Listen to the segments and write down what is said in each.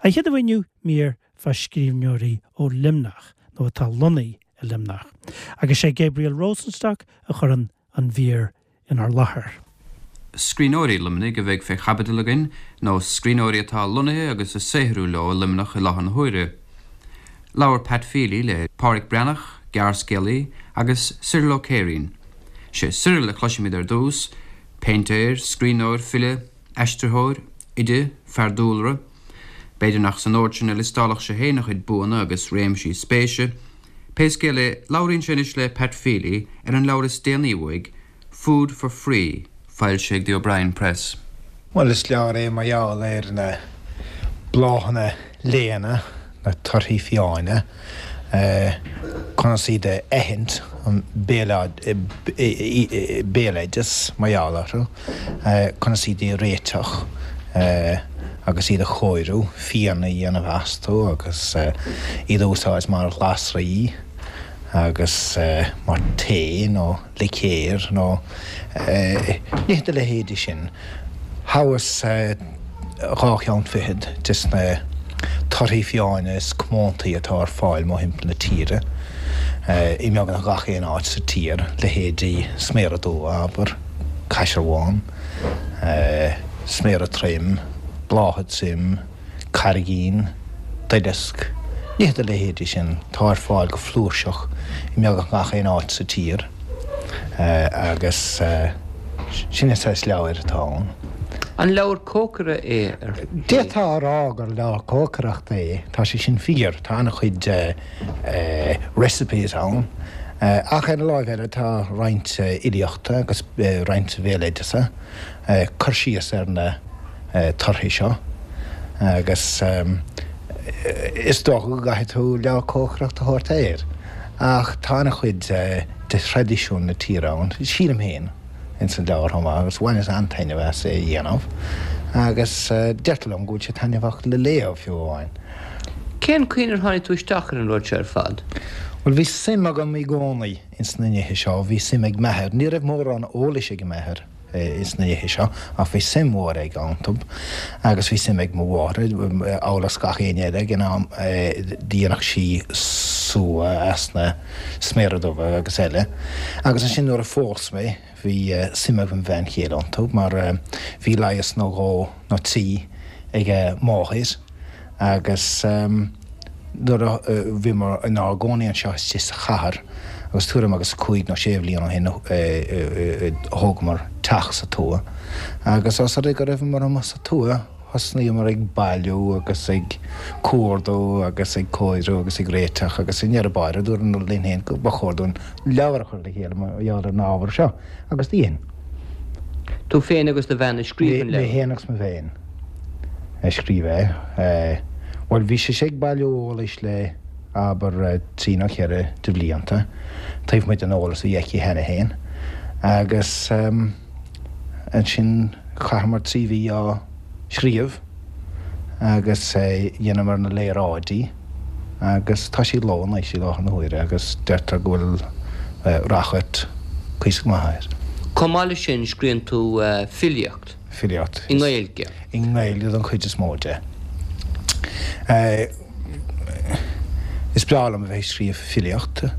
An chéad uair inniu, mír fá scríbhneoirí ó Luimneach, nó atá lonnaithe i Luimneach. Agus sé Gabriel Rosenstock a chuireann an mhír inár láthair. Scríbhneoirí Luimnigh a bheidh fé chaibidil againn, nó scríbhneoirí atá lonnaithe agus ag saothrú leo i Luimneach i láthair na huaire. Labhair Pat Feely le Pádhraic Breathnach, gearrscéalaí, agus Cyril Ó Céirín. Sé Cyril a chloisfimid ar dtús, péintéir, scríbhneoir, file, aistritheoir, oide, fear dúlra. B'fhéidir nach san ord sin a liostálfadh sé féin a chuid buanna agus réimsí spéise. Pé scéal é, labhraíonn sé anois le Pat Feely ar an leabhar is déanaí uaidh, Food for Free, foilsithe ag The O'Brien Press. Bhuel, is leabhar é mar gheall ar na bláthanna léana, na torthaí fiáine, conas iad a aithint, an béaloideas mar gheall orthu, conas iad a réiteach agus iad a chóiriú, fíon a dhéanamh astu agus iad a úsáid mar ghlasraí agus mar tae nó licéar nó nithe dá leithéidí sin. Thoghas dhá cheann fichead des na torthaí fiáine is comóntaí atá ar fáil mórthimpeall na tíre, i mbeagnach gach aon áit sa tír, leithéidí sméara dubha, abair, caisearbhán, sméara troim, blátha troim, carraigín, duileasc, nithe dá leithéidí sin atá ar fáil go flúirseach i mbeagnach gach aon áit sa tír agus sin an saghas leabhair atá ann. An leabhar cócaire é ar shlí? D'fhéadfá a rá gur leabhar cócaireachta é, tá sé sin fíor, tá an-chuid recipes ann ach ar an láimh eile tá roinnt fhilíochta agus roinnt bhéaloideasa, cur síos ar na torthaí seo agus is dócha go gcaithfidh tú leabhar cócaireachta a thabhairt air ach tá an-chuid de thraidisiún na tíre ann, sílim féin, ins an leabhar chomh maith agus bhaineas an-taitneamh as é a dhéanamh agus deirtear liom go bhfuil sé taitneamhach le léamh fiú amháin. Cén chaoi ar tháinig tú isteach ar an rud seo ar fad? Bhuel, bhí suim agam i gcónaí ins na nithe seo, bhí suim ag m'athair, ní raibh mórán eolais ag m'athair, ins na nithe seo, ach bhí suim mhór aige iontu agus bhí suim ag mo mháthair, amhail is gach éinne eile ag an am, dhéanadh sí sua as na sméara dubha agus eile. Agus ansin nuair a phós mé, bhí suim ag mo bhean chéile iontu mar bhí leigheas nó dhó nó trí ag a máthair agus nuair a bhíomar inár gcónaí anseo istigh sa chathair agus tuairim agus cúig nó sé bhliain ó shin thógamar teach sa tuath agus os rud é go raibheamar amuigh sa tuath thosnaíomar ag bailiú agus ag cuardú agus ag cóiriú agus ag réiteach agus i ndeireadh báire dúramar linn féin go ba chóir dúinn leabhar a chur le chéile mar gheall ar an ábhar seo agus dhein. Tú féin agus do bhean a scríobh an leabhar? Mé féin agus mo bhean a scríobh é. Bhuel, bhí sise ag bailiú eolais le, abair, trí nó cheithre de bhlianta, taobh amuigh den eolas a bhí aici cheana féin, agus ansin chaitheamar trí mhí á scríobh agus dheineamar na léaráidí agus tá sé i gcló anois i láthair na huaire agus deirtear go bhfuil ráchairt cuíosach maith air. Chomh maith leis sin scríonn tú filíocht. Filíocht. I nGaeilge. I nGaeilge don chuid is mó de. Is breá liom a bheith ag scríobh filíochta.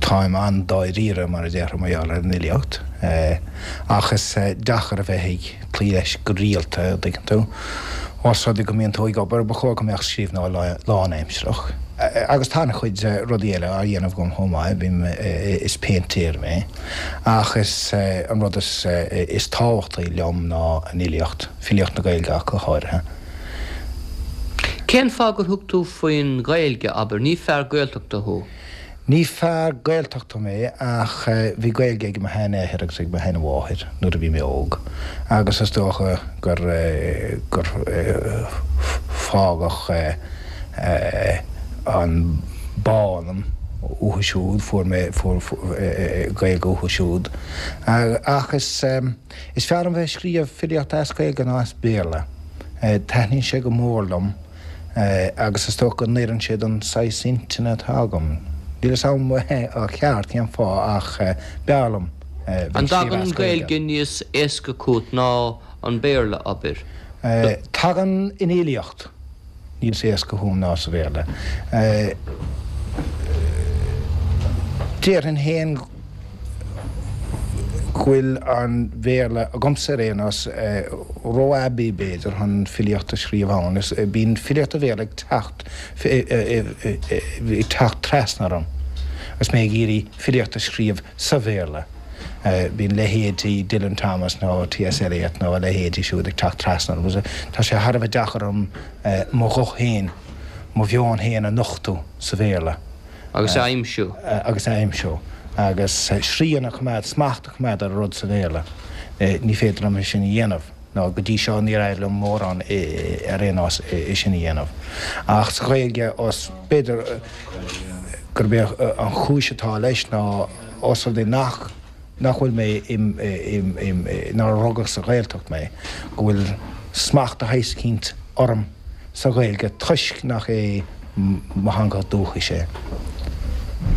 Táim an-dáiríre, mar a déarfá, mar gheall ar an fhilíocht. Ach is deacair a bheith ag cloí leis go rialta, an dtuigeann tú. Ós rud é go mbíonn tú ag obair, ba chóir go mbeadh scríbhneoir lánaimsearach. Agus tá an-chuid rudaí eile á dhéanamh agam chomh maith, bím, is péintéir mé. Ach is an rud is is tábhachtaí liom ná an fhilíocht, filíocht na Gaeilge ach go háirithe. Cén fáth gur thug tú faoin Ghaeilge, abair? Ní fear Gaeltachta thú. Ní fear Gaeltachta mé ach bhí Gaeilge ag mo sheanathair agus ag mo sheanmháthair nuair a bhí mé óg agus is dócha gur gur fágadh an bá ionam uathu siúd, fuair mé fuair Gaeilge uathu siúd. Ach is is fearr liom bheith ag scríobh filíochta as Gaeilge ná as Béarla. Taitníonn sé go mór liom agus is dócha go n-oireann sé don saghas intinne atá agam. Níl a fhios agam ó cheart cén fáth ach b'fhearr liom bheith ag scríobh as Gaeilge. An dtagann an Ghaeilge níos éasca chugat ná an Béarla, abair? Tagann an fhilíocht níos éasca chugam ná sa Bhéarla. Déarfainn féin go bhfuil an Bhéarla, agamsa ar aon nós, ró-aibí b'fhéidir chun filíocht a scríobh ann. Bíonn filíocht an Bhéarla ag teacht ag teacht trasna orm agus mé ag iarraidh filíocht a scríobh sa Bhéarla. Bíonn leithéidí Dylan Thomas nó T.S. Eliot nó a leithéidí siúd ag teacht trasna orm. Tá sé thar a bheith deacair orm mo ghuth féin, mo mheon féin a nochtadh sa Bhéarla. Agus a aimsiú. Agus a aimsiú. Agus srian a choimeád, smacht a choimeád ar an rud sa Bhéarla. Ní féidir liom é sin a dhéanamh. Nó go dtí seo níor éirigh liom mórán ar aon nós é sin a dhéanamh. Ach sa Ghaeilge, os, b'fhéidir gurb é an chúis atá leis ná os rud é nach, nach bhfuil mé im, im, im, nár rugadh sa Ghaeltacht mé, go bhfuil smacht de shaghas eicínt orm sa Ghaeilge toisc nach é mo theanga dúchais é.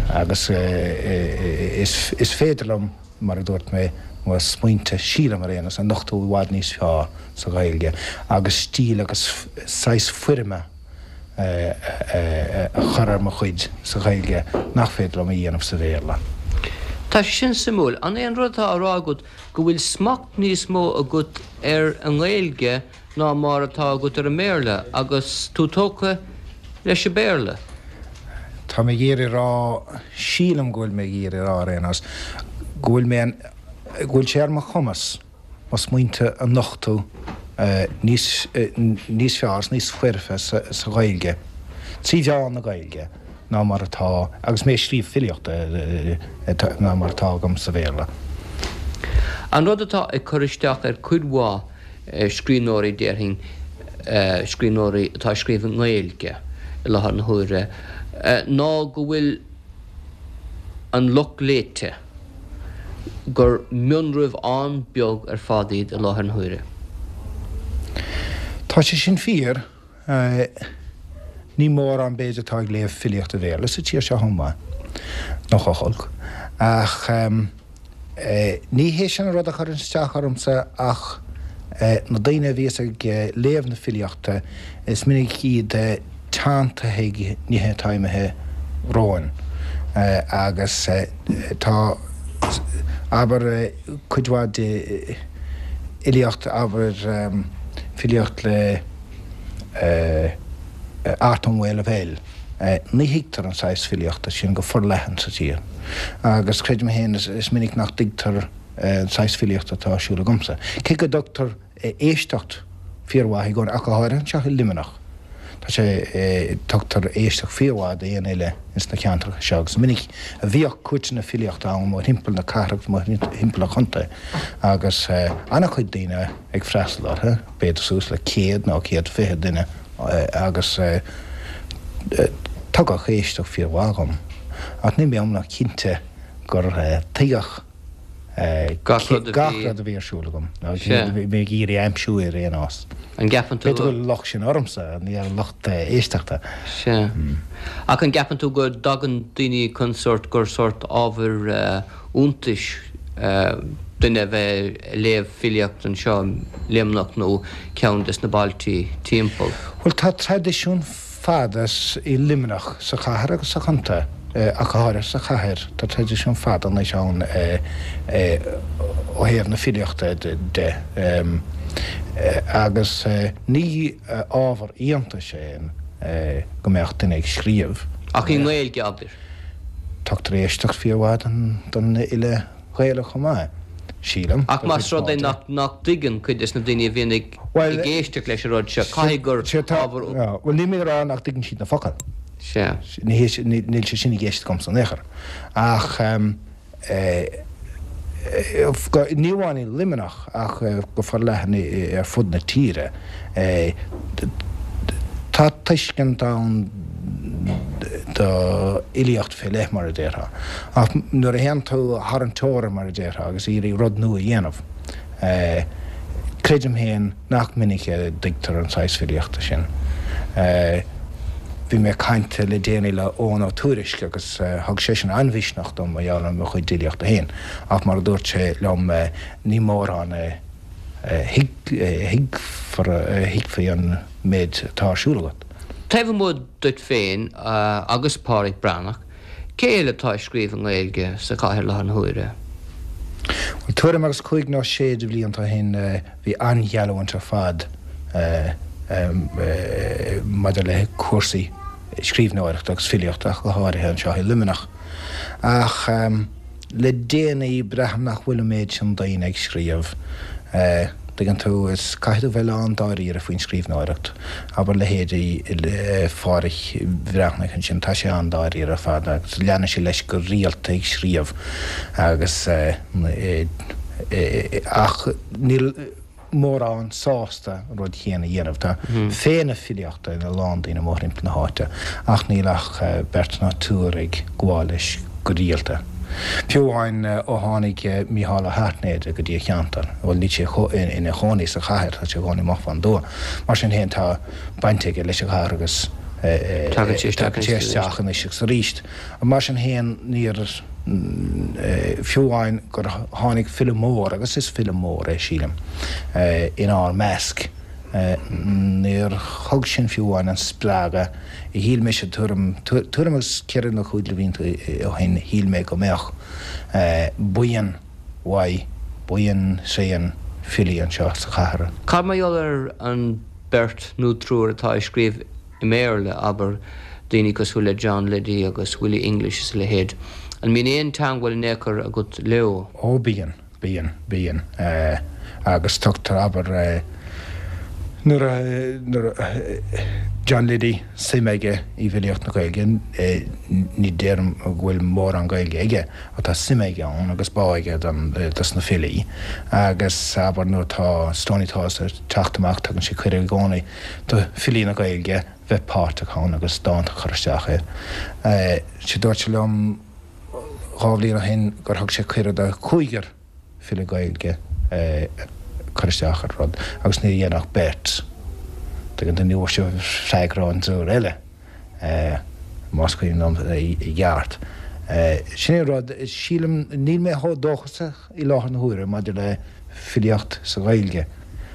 Agus is, is féidir liom, mar a dúirt mé, mo smaointe, sílim ar aon nós, a nochtadh i bhfad níos fearr sa Ghaeilge agus stíl agus saghas foirme a chur ar mo chuid sa Ghaeilge nach féidir liom a dhéanamh sa Bhéarla. Tá sé sin suimiúil. An é an rud atá á rá agat go bhfuil smacht níos mó agat ar an nGaeilge ná mar atá agat ar an mBéarla agus tú tógtha leis an Bhéarla? Tá mé ag iarraidh a rá, sílim go bhfuil mé ag iarraidh a rá ar aon nós, go bhfuil mé, go bhfuil sé ar mo chumas mo smaointe a nochtadh níos, níos fearr is níos foirfe sa Ghaeilge, trí mheán na Gaeilge, ná mar atá agus mé ag scríobh filíochta, ná mar atá agam sa Bhéarla. An rud atá ag cur isteach ar cuid mhaith scríbhneoirí, déarfainn, scríbhneoirí atá ag scríobh i nGaeilge i láthair na huaire, ná go bhfuil an lucht léite, gur mionraibh an-bheag ar fad iad i láthair na huaire. Tá sé sin fíor. Ní mórán, b'fhéidir, atá ag léamh filíochta Bhéarla sa tír seo chomh maith, nach olc. Ach ní hé sin an rud a chuireann isteach ormsa ach na daoine a bhíos ag léamh na filíochta, is minic iad teanntaithe ag nithe atá imithe romhainn agus tá, abair, cuid mhaith de fhilíocht, abair, filíocht le Art Ó Maolaimh, ní thuigtear an saghas filíochta sin go forleathan sa tír agus creidim féin is minic nach dtuigtear an saghas filíochta atá ar siúl agamsa. Cé go dtugtar éisteacht fíormhaith i gcónaí, ach go háirithe anseo i Luimneach, tá sé, tugtar éisteacht fíormhaith d'aon fhile ins na ceantracha seo agus is minic a bhíodh cúirteanna filíochta ann mórthimpeall na cathrach agus mórthimpeall an chontae agus an-chuid daoine ag freastal orthu, b'fhéidir suas le 100 nó 120 duine agus tugadh éisteacht fíormhaith dhom. Ach níl mé iomlán cinnte gur tuigeadh gach rud a bhí ar siúl agam, nó bhí mé ag iarraidh aimsiú ar aon nós. An gceapann tú. B'fhéidir go bhfuil an locht sin ormsa, ní ar an lucht éisteachta. Sea. Ach an gceapann tú go dtagann daoine chun sórt, gur sórt ábhar iontais duine a bheith ag léamh filíocht anseo i Luimneach nó ceann des na bailtí timpeall? Bhuel, tá traidisiún fada i Luimneach, sa chathair agus sa chontae, ach go háirithe sa chathair. Tá traidisiún fada anois ann ó thaobh na filíochta de agus ní ábhar iontais é go mbeadh duine ag scríobh. Ach i nGaeilge, abair. Tugtar éisteacht fíormhaith don fhile Gaelach chomh maith, sílim. Ach más rud é nach dtuigeann cuid des na daoine a bhíonn ag éisteacht leis an rud seo, caithfidh gur ábhar. Bhuel, níl mé ag rá nach dtuigeann siad na focail. Sea. Níl sé sin i gceist agamsa in aon chor. Ach ní amháin i Luimneach ach go forleathan ar fud na tíre, tá tuiscint ann do fhilíocht fé leith, mar a déarfá. Ach nuair a théann tú thar an teorainn, mar a déarfá, agus iarraidh rud nua a dhéanamh, creidim féin nach minic a dtuigtear an saghas filíochta sin. Bhí mé ag caint le déanaí le Eoghan Ó Tuairisg agus thug seisean an-mhisneach dom mar gheall ar mo chuid fhilíochta féin. Ach mar a dúirt sé liom, ní mórán a. Thuigfí an méid atá ar siúl agat. Taobh amuigh duit féin agus Páraic Breathnach, cé eile atá ag scríobh i nGaeilge sa chathair i láthair na huaire? Bhuel, tuairim agus cúig nó sé de bhlianta ó shin bhí an-gheallúint ar fad maidir le cúrsaí scríbhneoireachta agus filíochta ach go háirithe anseo i Luimneach. Ach le déanaí braithim nach bhfuil an méid sin daoine ag scríobh. Tuigeann tú, is caithfidh tú bheith lán-dáiríre faoin scríbhneoireacht. Abair leithéidí Phádhraic Bhreathnaigh ansin, tá sé an-dáiríre ar fad agus leanann sé leis go rialta ag scríobh agus ach níl mórán sásta an rud chéanna a dhéanamh. Tá féith na filíochta ina lán daoine mórthimpeall na háite ach níl ach beirt ná triúr ag gabháil leis go rialta. Fiú amháin ó tháinig Mícheál Ó hAirtnéide go dtí an cheantar, bhuel níl sé ina chónaí sa chathair, tá sé i gcónaí amach fán dtuath. Mar sin féin tá baint aige leis an chathair agus tagann sé isteach anois agus arís. Mar sin féin níor. Fiú amháin gur tháinig file mór, agus is file mór é, sílim, inár measc, níor thug sin fiú amháin an spreagadh a shíl mise tuairim, tuairim agus ceithre nó cúig de bhlianta ó shin, shíl mé go mbeadh buíon mhaith, buíon tréan filí anseo sa chathair. Cad mar gheall ar an beirt nó triúr atá ag scríobh i mBéarla, abair, daoine cosúil le John Liddy agus Willie English is a leithéid. An mbíonn aon teangmháil in aon chor agat leo? Ó bíonn, bíonn, bíonn. Agus tugtar, abair, nuair a, nuair a, John Liddy, suim aige i bhfilíocht na Gaeilge, ní déarfainn go bhfuil mórán Gaeilge aige ach tá suim aige ann agus bá aige don, dos na filí. Agus, abair, nuair atá Stoney Tales ag teacht amach tugann sé cuireadh i gcónaí do filí na Gaeilge bheith páirteach ann agus dánta a chur isteach air. Sea, dúirt sé liom dhá bhliain ó shin gur thug sé cuireadh do chúigear file Gaeilge cur isteach ar rud agus níor dhein ach beirt. Tuigeann tú, ní bhfuair sé freagra ón dtriúr eile, más cuimhin liom i gceart. Sin é an rud, sílim, níl mé chomh dóchasach i láthair na huaire maidir le filíocht sa Ghaeilge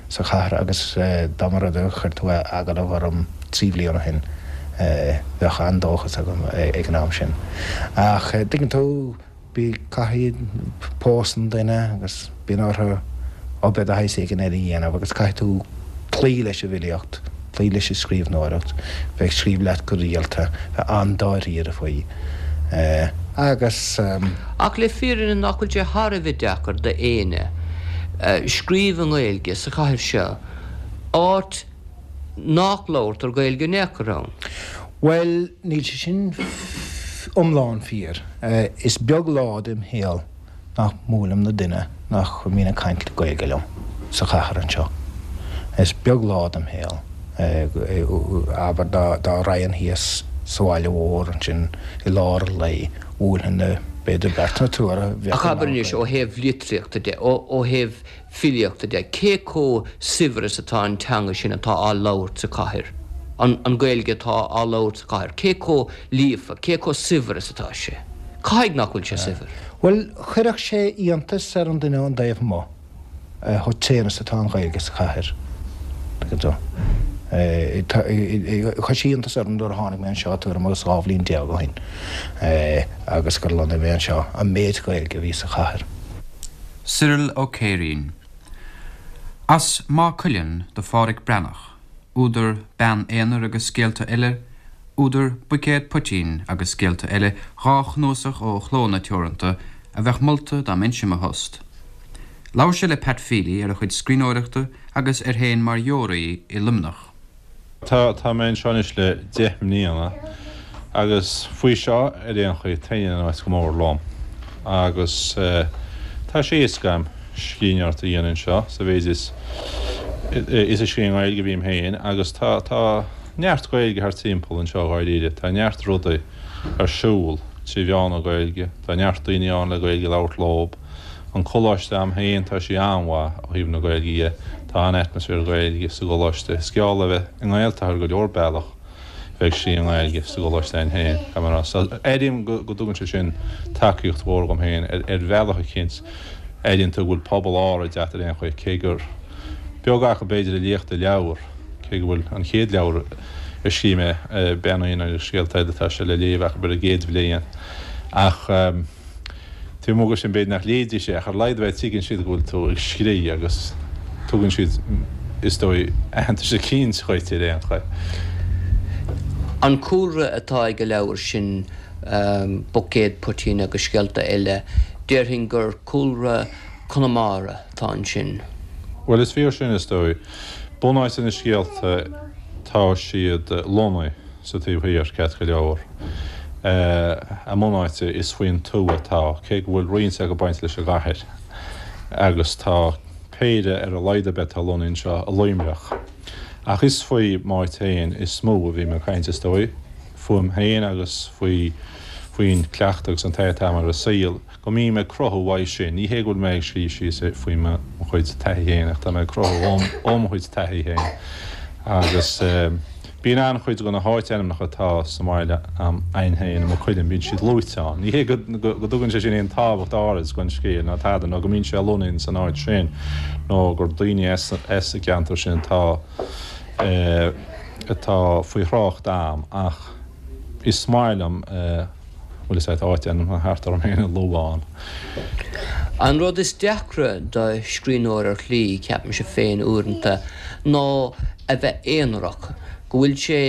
sa chathair agus dá mba rud é gur chuir tú agallamh orm 3 bhliain ó shin bheadh an-dóchas agam ag an am sin. Ach tuigeann tú, bí, caithfidh, pósann duine agus bíonn orthu obair de shaghas éigin eile a dhéanamh agus caithfidh tú cloí leis an bhfilíocht, cloí leis an scríbhneoireacht, bheith ag scríobh leat go rialta, bheith an-dáiríre faoi agus. Ach le fírinne nach bhfuil sé thar a bheith deacair d'éinne scríobh i nGaeilge sa chathair seo, áit nach labhartar Gaeilge in aon chor ann? Bhuel, níl sé sin iomlán fíor. Is beag lá dem shaol nach mbuailim le duine nach mbíonn ag caint Gaeilge liom sa chathair anseo. Is beag lá dem shaol, abair, dá raghainn thíos sa bhaile mhór ansin i lár an lae, bhuailfinn le b'fhéidir beirt nó triúr a bheadh Ach abair anois, ó thaobh litríochta de, ó thaobh filíochta de, cé chomh saibhir is atá an teanga sin atá á labhairt sa chathair, an Ghaeilge atá á labhairt sa chathair, cé chomh líofa, cé chomh saibhir is atá sé? Caithfidh nach bhfuil sé saibhir. Bhuel, chuirfeadh sé iontas ar an duine ón dtaobh amuigh chomh tréan is atá an Ghaeilge sa chathair. Tuigeann tú? Chuir sé iontas orm nuair a tháinig mé anseo tuairim agus 12 bhliain ó shin agus gur lonnaigh mé anseo, an méid Gaeilge a bhí sa chathair. Cyril Ó Céirín. As Maigh Cuilinn do Phádhraic Breathnach, údar Bean Aonair agus Scéalta Eile, údar Buicéad Poitín agus Scéalta Eile, dhá chnuasach ó Chlódhanna Teoranta a bheadh molta dá mbeinnse i mo thost. Labhair sé le Pat Feely ar a chuid scríbhneoireachta agus air féin mar dheoraí i Luimneach. Tá, tá mé anseo anois le 10 mbliana agus faoi seo ar aon chaoi taitníonn an áit go mór liom agus tá sé éasca agam scríbhneoireacht a dhéanamh anseo sa mhéid is is ag scríobh i nGaeilge a bhím féin agus tá tá neart Gaeilge thart timpeall anseo dháiríre, tá neart rudaí ar siúl trí mheán na Gaeilge, tá neart daoine ann le Gaeilge a labhairt leob. An coláiste a'm féin, tá sé an-mhaith ó thaobh na Gaeilge dhe. Tá an-atmaisféar Gaeilge sa gcoláiste. Is geall le bheith i nGaeltacht ar go leor bealach bheith ag scríobh i nGaeilge sa gcoláiste a'inn féin, caithfidh mé a rá. So, airím go dtugann sé sin tacaíocht mhór dhom féin ar bhealach eicínt. Airíonn tú go bhfuil pobal áirid a't ar aon chaoi, cé gur. Beag acu b'fhéidir a léifeadh do leabhar, cé go bhfuil an chéad leabhar a scríobh mé, Bean Uí Fhinn agus Scéalta Eile, tá sé le léamh acu ar an gcéad bhliain. Ach taobh amuigh de sin b'fhéidir nach léifidís é, ach ar a laghad bheith tuigeann siad go bhfuil tú ag scríobh agus tugann siad, is dóigh, aitheantas eicínt dhuit ar aon chaoi. An cúlra atá ag an leabhar sin, Buicéad Poitín agus Scéalta Eile, déarfainn gur cúlra Conamara atá ansin. Bhuel, is fíor sin, is dóigh. Bunáite na scéalta, tá siad lonnaithe sa taobh thiar, ceart go leor. A mbunáite, is faoin tuath atá, cé go bhfuil roinnt acu bainte leis an gcathair. Agus tá péire ar a laghad ar bith atá lonnaithe anseo i Luimneach. Ach is faoi m'áit féin is mó a bhím ag caint, is dóigh. Fúm féin agus faoi faoin cleachtadh agus an taithí atá agam ar an saol. go mbím ag cruthú uaidh sin. Ní hé go bhfuil mé ag scríobh síos faoi mo chuid taithí féin ach tá mé ag cruthú ó mo chuid taithí féin. Agus bíonn an-chuid de na háitainmneacha atá sa mbaile a'inn féin, i Maigh Cuilinn, bíonn siad luaite ann. Ní hé go dtugann sé sin aon tábhacht áirid don scéal ná tada, nó go mbíonn sé lonnaithe san áit sin, nó gur daoine as an gceantar sin atá atá faoi thrácht a'm, ach is maith liom. bhfuil fhios a'd, áitainmneacha thart orm féin a lua ann. An rud is deacra do scríbhneoir ar shlí, ceapaimse féin uaireanta, ná a bheith aonarach, go bhfuil sé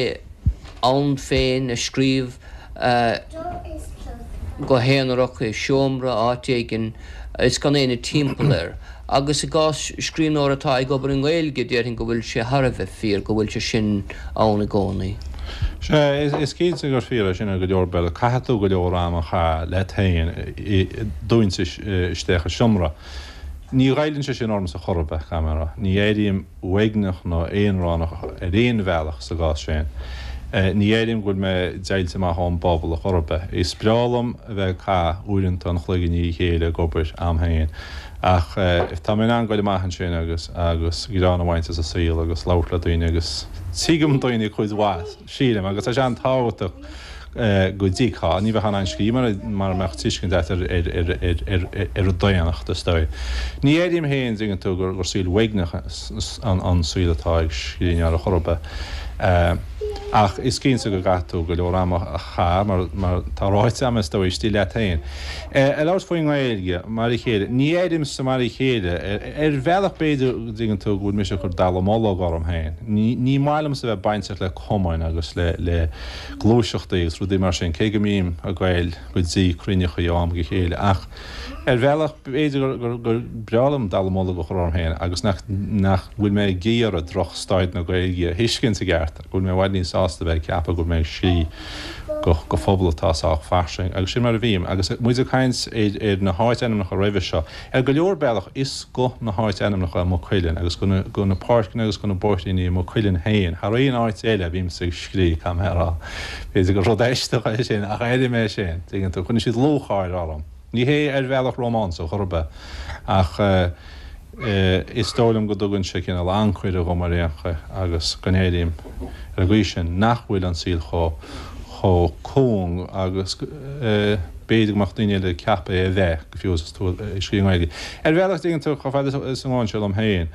ann féin ag scríobh go haonarach i seomra áit éigin is gan éinne timpeall air. Agus i gcás scríbhneora atá ag obair i nGaeilge, déarfainn go bhfuil sé thar a bheith fíor go bhfuil sé sin ann i gcónaí. Sea, is cinnte gur fíor é sin ar go leor bealaí. Caithfidh tú go leor ama a chaitheamh leat féin dúinte isteach i seomra. Ní ghoilleann sé sin ormsa chor ar bith, caithfidh mé a rá. Ní airím uaigneach nó aonránach ar aon bhealach sa gcás sin. Ní airím go bhfuil mé deighilte amach ón bpobal a chor ar bith. Is breá liom a bheith ag caitheamh uaireanta an chloig i ndiaidh a chéile ag obair a'm féin ach tá mé in ann goil amach ansin agus agus greann a bhaint as an saol agus labhairt le daoine agus tuigim daoine cuid mhaith, sílim, agus tá sé an-tábhachtach go dtuigfeá. Ní bheifeá in ann scríobh mara mbeadh tuiscint agat ar an daonnacht, is dóigh. Ní airím féin, dtuigeann tú, gur saol uaigneach an saol atá ag scríbhneoir a chor ar bith. Ach is cinnte go gcaithfidh tú go leor ama a chaitheamh, mar tá ráite agam, is dóigh, istigh leat féin. Ag labhairt faoin nGaeilge, mar a chéile, ní airímse mar a chéile. Ar bhealach b'fhéidir, dtuigeann tú, go bhfuil mise ag cur dallamullóg orm féin. Ní maith liomsa a bheith bainteach le cumainn agus le gluaiseachtaí agus rudaí mar sin, cé go mbím ag goil go dtí cruinneachaí ó am go chéile, ach ar bhealach b'fhéidir gur gur breá liom dallamullóg a chur orm féin agus nach nach bhfuil mé ag iarraidh droch staid na Gaeilge a thuiscint i gceart, go bhfuil mé i bhfad níos sásta bheith ag ceapadh go bhfuil mé ag scríobh go go phobal atá sách fairsing agus sin mar a bhím. Agus muid ag caint ar ar na háit-ainmneacha roimhe seo, Ar go leor bealach, is go na háit-ainmneacha i Maigh Cuilinn agus go go na páirceanna agus go na bóithríní i Maigh Cuilinn féin, thar aon áit eile a bhímse ag scríobh, caithfidh mé a rá. B'fhéidir gur rud aisteach é sin, ach airím é sin, tuigeann tú. Cuireann siad lúcháir orm. Ní hé ar bhealach rómánsach chor ar bith, ach is dóigh liom go dtugann sé cineál ancaire dhom ar aon chaoi agus go n-airím ar an gcaoi sin nach bhfuil an saol chomh chomh cúng agus b'fhéidir go mbeadh daoine eile ag ceapadh é a bheith, go fiú is tú ag scríobh i nGaeilge. Ar bhealach, dtuigeann tú, chomh fada is a ngabhann sé liom féin,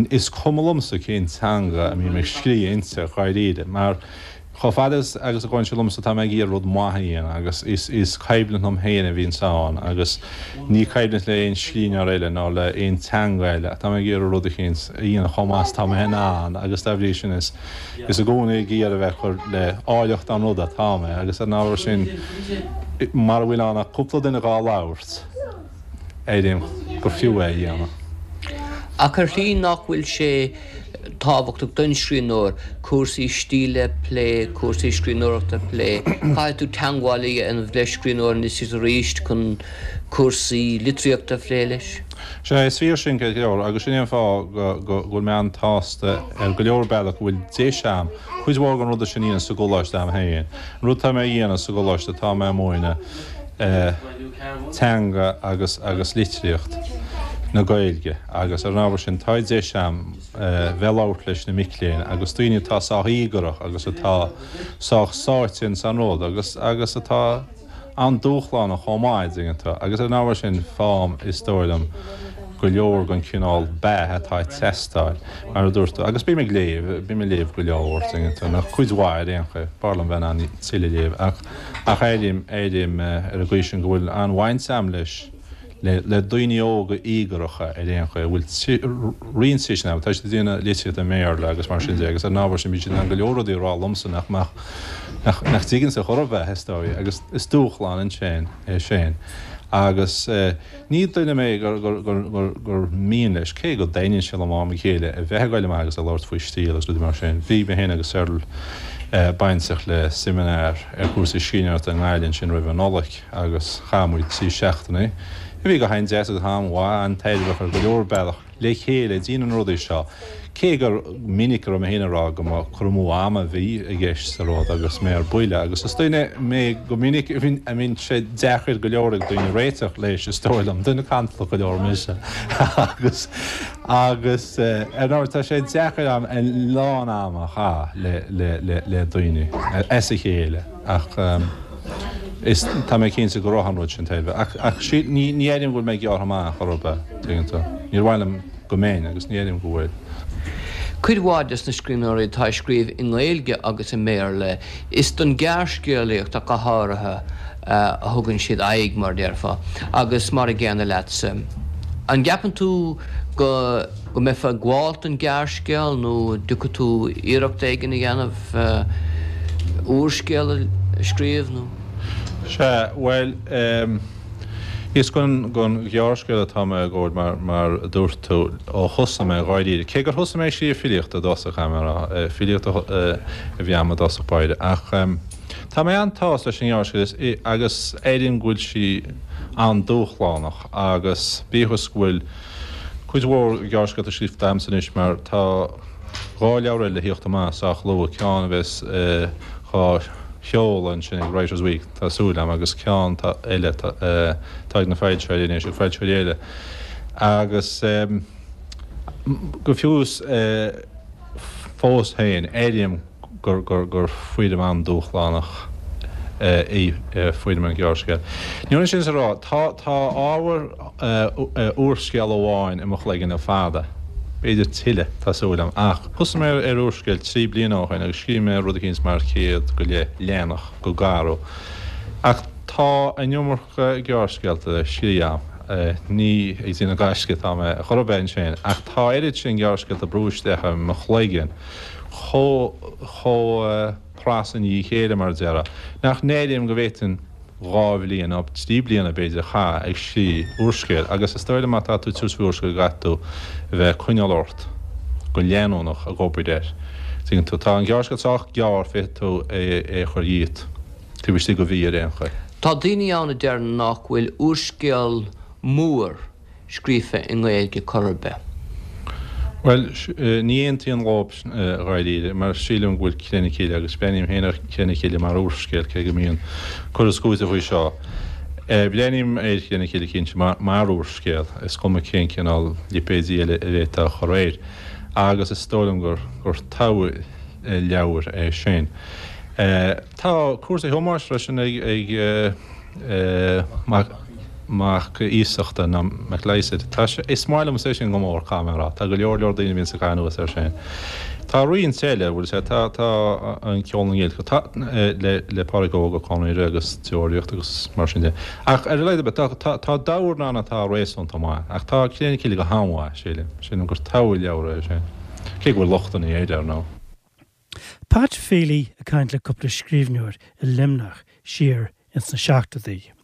is cuma liomsa cén teanga a mbím ag scríobh inti, dháiríre, mar chomh fada agus a ghabhann sé liomsa tá mé ag iarraidh rud maith a dhéanamh agus is is coimhlint liom féin a bhíonns ann agus ní coimhlint le aon scríbhneoir eile ná le aon teanga eile ach tá mé ag iarraidh rud eicínt a dhéanamh chomh maith is atá mé in ann agus dá bhrí sin is Is i gcónaí ag iarraidh a bheith ag cur le áilleacht an ruda atá mé, agus ar an ábhar sin, mara bhfuil ann ach cúpla duine dhá labhairt, airím gur fiú é a dhéanamh. Ach ar shlí nach bhfuil sé tábhachtach don scríbhneoir cúrsaí stíle a phlé, cúrsaí scríbhneoireachta a phlé. Caithfidh tú teagmháil a dhéanamh le scríbhneoir anois is arís chun cúrsaí litríochta a phlé leis. Sea, is fíor sin ceart go leor, agus sin é an fáth go bhfuil mé an-tsásta ar go leor bealach go bhfuil deis a'm cuid mhór den ruda sin a dhéanamh sa gcoláiste a'm féin. An rud atá mé a dhéanamh sa gcoláiste, tá mé ag múineadh teanga agus agus litríocht na Gaeilge agus ar an ábhar sin tá deis a'm bheith ag labhairt leis na mic léinn agus daoine atá sách íogarach agus atá sách sáite ins an rud agus agus atá an-dúshlánach chomh maith, dtuigeann tú, agus ar an ábhar sin faighim, is dóigh liom, go leor den chineál beatha atá ag teastáil, mar a dúirt tú. Agus bím ag léamh, bím ag léamh go leor, tuigeann tú, nó cuid mhaith ar aon chaoi. B'fhearr liom bheith in ann tuilleadh a léamh ach, ach airím, airím ar an gcaoi sin go bhfuil an-bhaint a'm leis, le, le daoine óga íogaracha ar aon chaoi, a bhfuil roinnt tuiscint acu, tá siad ag déanamh litríochta i mBéarla agus mar sin de agus ar an ábhar sin bíonn siad in ann go leor rudaí a rá liomsa nach mbeadh, nach, nach dtuiginnse chor ar bith, is dóigh, agus is dúshlán ansin é sin. Agus ní duine mé gur, gur, gur, gur, gur mian leis, cé go dtaitníonn sé liom ó am go chéile a bheith ag goil amach agus ag labhairt faoi stíl agus rudaí mar sin. Bhí mé féin agus Cyril bainteach le seimineár ar chúrsaí scríbhneoireachta i nGaillimh ansin roimh an Nollaig. agus chaith muid 3 seachtainí, a bhí go han-deas agus han-mhaith, an-tairbheach ar go leor bealach, le chéile ag déanamh na rudaí seo. Cé gur minic a raibh mé féin ag rá go mba cur amú ama a bhí i gceist sa rud agus mé ar buile, agus is duine mé go minic a mbíonn sé deacair go leor ag daoine réiteach leis, is dóigh liom, duine cantalach go leor mise agus agus ar ndóigh tá sé deacair am a lán ama a chaitheamh le le le daoine as a chéile. Ach is, tá mé cinnte go raibh an rud sin tairbheach. Ach, ach sí, ní, ní airím go bhfuil mé gearrtha amach chor ar bith, tuigeann tú. Níor mhaith liom go mbeinn agus ní airím go bhfuil. Cuid mhaith des na scríbhneoirí atá ag scríobh i nGaeilge agus i mBéarla, is don ghearrscéalaíocht ach go háirithe a thugann siad aghaidh, mar a déarfá, agus mar a gcéanna leatsa. An gceapann tú go go mbeifeá ag gabháil don ghearrscéal nó an dtiocfaidh tú iarracht éigin a dhéanamh úrscéal a scríobh nó? Sea, bhuel, is don ghearrscéal atá mé ag gabháil mar, mar a dúirt tú, ó thosaigh mé, dháiríre. Cé gur thosaigh mé ag scríobh filíochta i dtosach, caithfidh mé a rá, filíocht a bhí a'm i dtosach báire, ach tá mé an-tsásta leis an ngearrscéal agus airím go bhfuil sí an-dúshlánach agus bíodh is go bhfuil Cuid mhór gearrscéalta scríofa a'msa anois mar tá 2 leabhar eile le thíocht amach sách luath, ceann a bheas dhá sheoladh ansin ag Writers' Week, tá súil a'm, agus ceann eile atá ag na foilsitheoirí anois, ag foilsitheoirí eile. Agus go fiú is fós féin, airím gur foirm an-dúshlánach í foirm an ghearrscéil. Ní hionann sin is a rá, tá ábhar úrscéal amháin i mo chloigeann le fada, b'fhéidir tuilleadh, tá súil agam, ach thosaigh mé ar úrscéal 3 bliana ó shin agus scríobh mé rud eicínt mar 100 go leith leathanach go garbh. Ach tá an iomarca gearrscéalta le scríobh agam. Ní ag déanamh gaisce atá mé chor ar bith ansin, ach tá oiread sin gearrscéalta ag brú isteach i mo chloigeann chomh chomh pras i ndiaidh a chéile, mar a déarfá, nach n-airím go bhféadfainn 2 bhliain, nó 3 bliana b'fhéidir, a chaitheamh ag scríobh úrscéil. Agus is dóigh liom má tá tú ag tabhairt faoi úrscéal go gcaithfidh tú a bheith ag coinneáil ort go leanúnach ag obair air. Tuigeann tú? Tá an gearrscéal sách gearr, féadfaidh tú é a chur dhíot taobh istigh de mhí ar aon chaoi. Tá daoine ann a deir nach bhfuil úrscéal mór scríofa i nGaeilge chor ar bith. Bhuel, ní aontaím leo dháiríre, mar sílim go bhfuil Cré na Cille, agus breathnaím féin ar Chré na Cille mar úrscéal, cé go mbíonn cur is cúiteamh faoi seo. Breathnaím ar Chré na Cille cinnte mar úrscéal, is cuma cén cineál lipéidí eile a bhféadfá a chur air, agus is dóigh liom gur togha leabhar é sin. Tá cúrsaí Thomáis freisin ag. Mac Iasachta nó Mac Lysaght. Tá sé, is maith liomsa é sin go mór, caithfidh mé a rá. Tá go leor leor daoine a bhíonns ag caitheamh anuas air sin. Tá roinnt eile, bhfuil sé, tá, tá An Ceol na nGiolcach, tá, le, le Pádraig Óg Ó Conaire agus Deoraíocht agus mar sin de. Ach ar a laghad ar bith, tá, tá, tá leabhair ann atá réasúnta maith. Ach tá Cré na Cille go han-mhaith, sílim. Sílim gur togha leabhar é sin. Cé go bhfuil lochtanna air, ar ndóigh. Pat Feely ag caint le cúpla scríbhneoir i Luimneach siar ins na seachtóidí.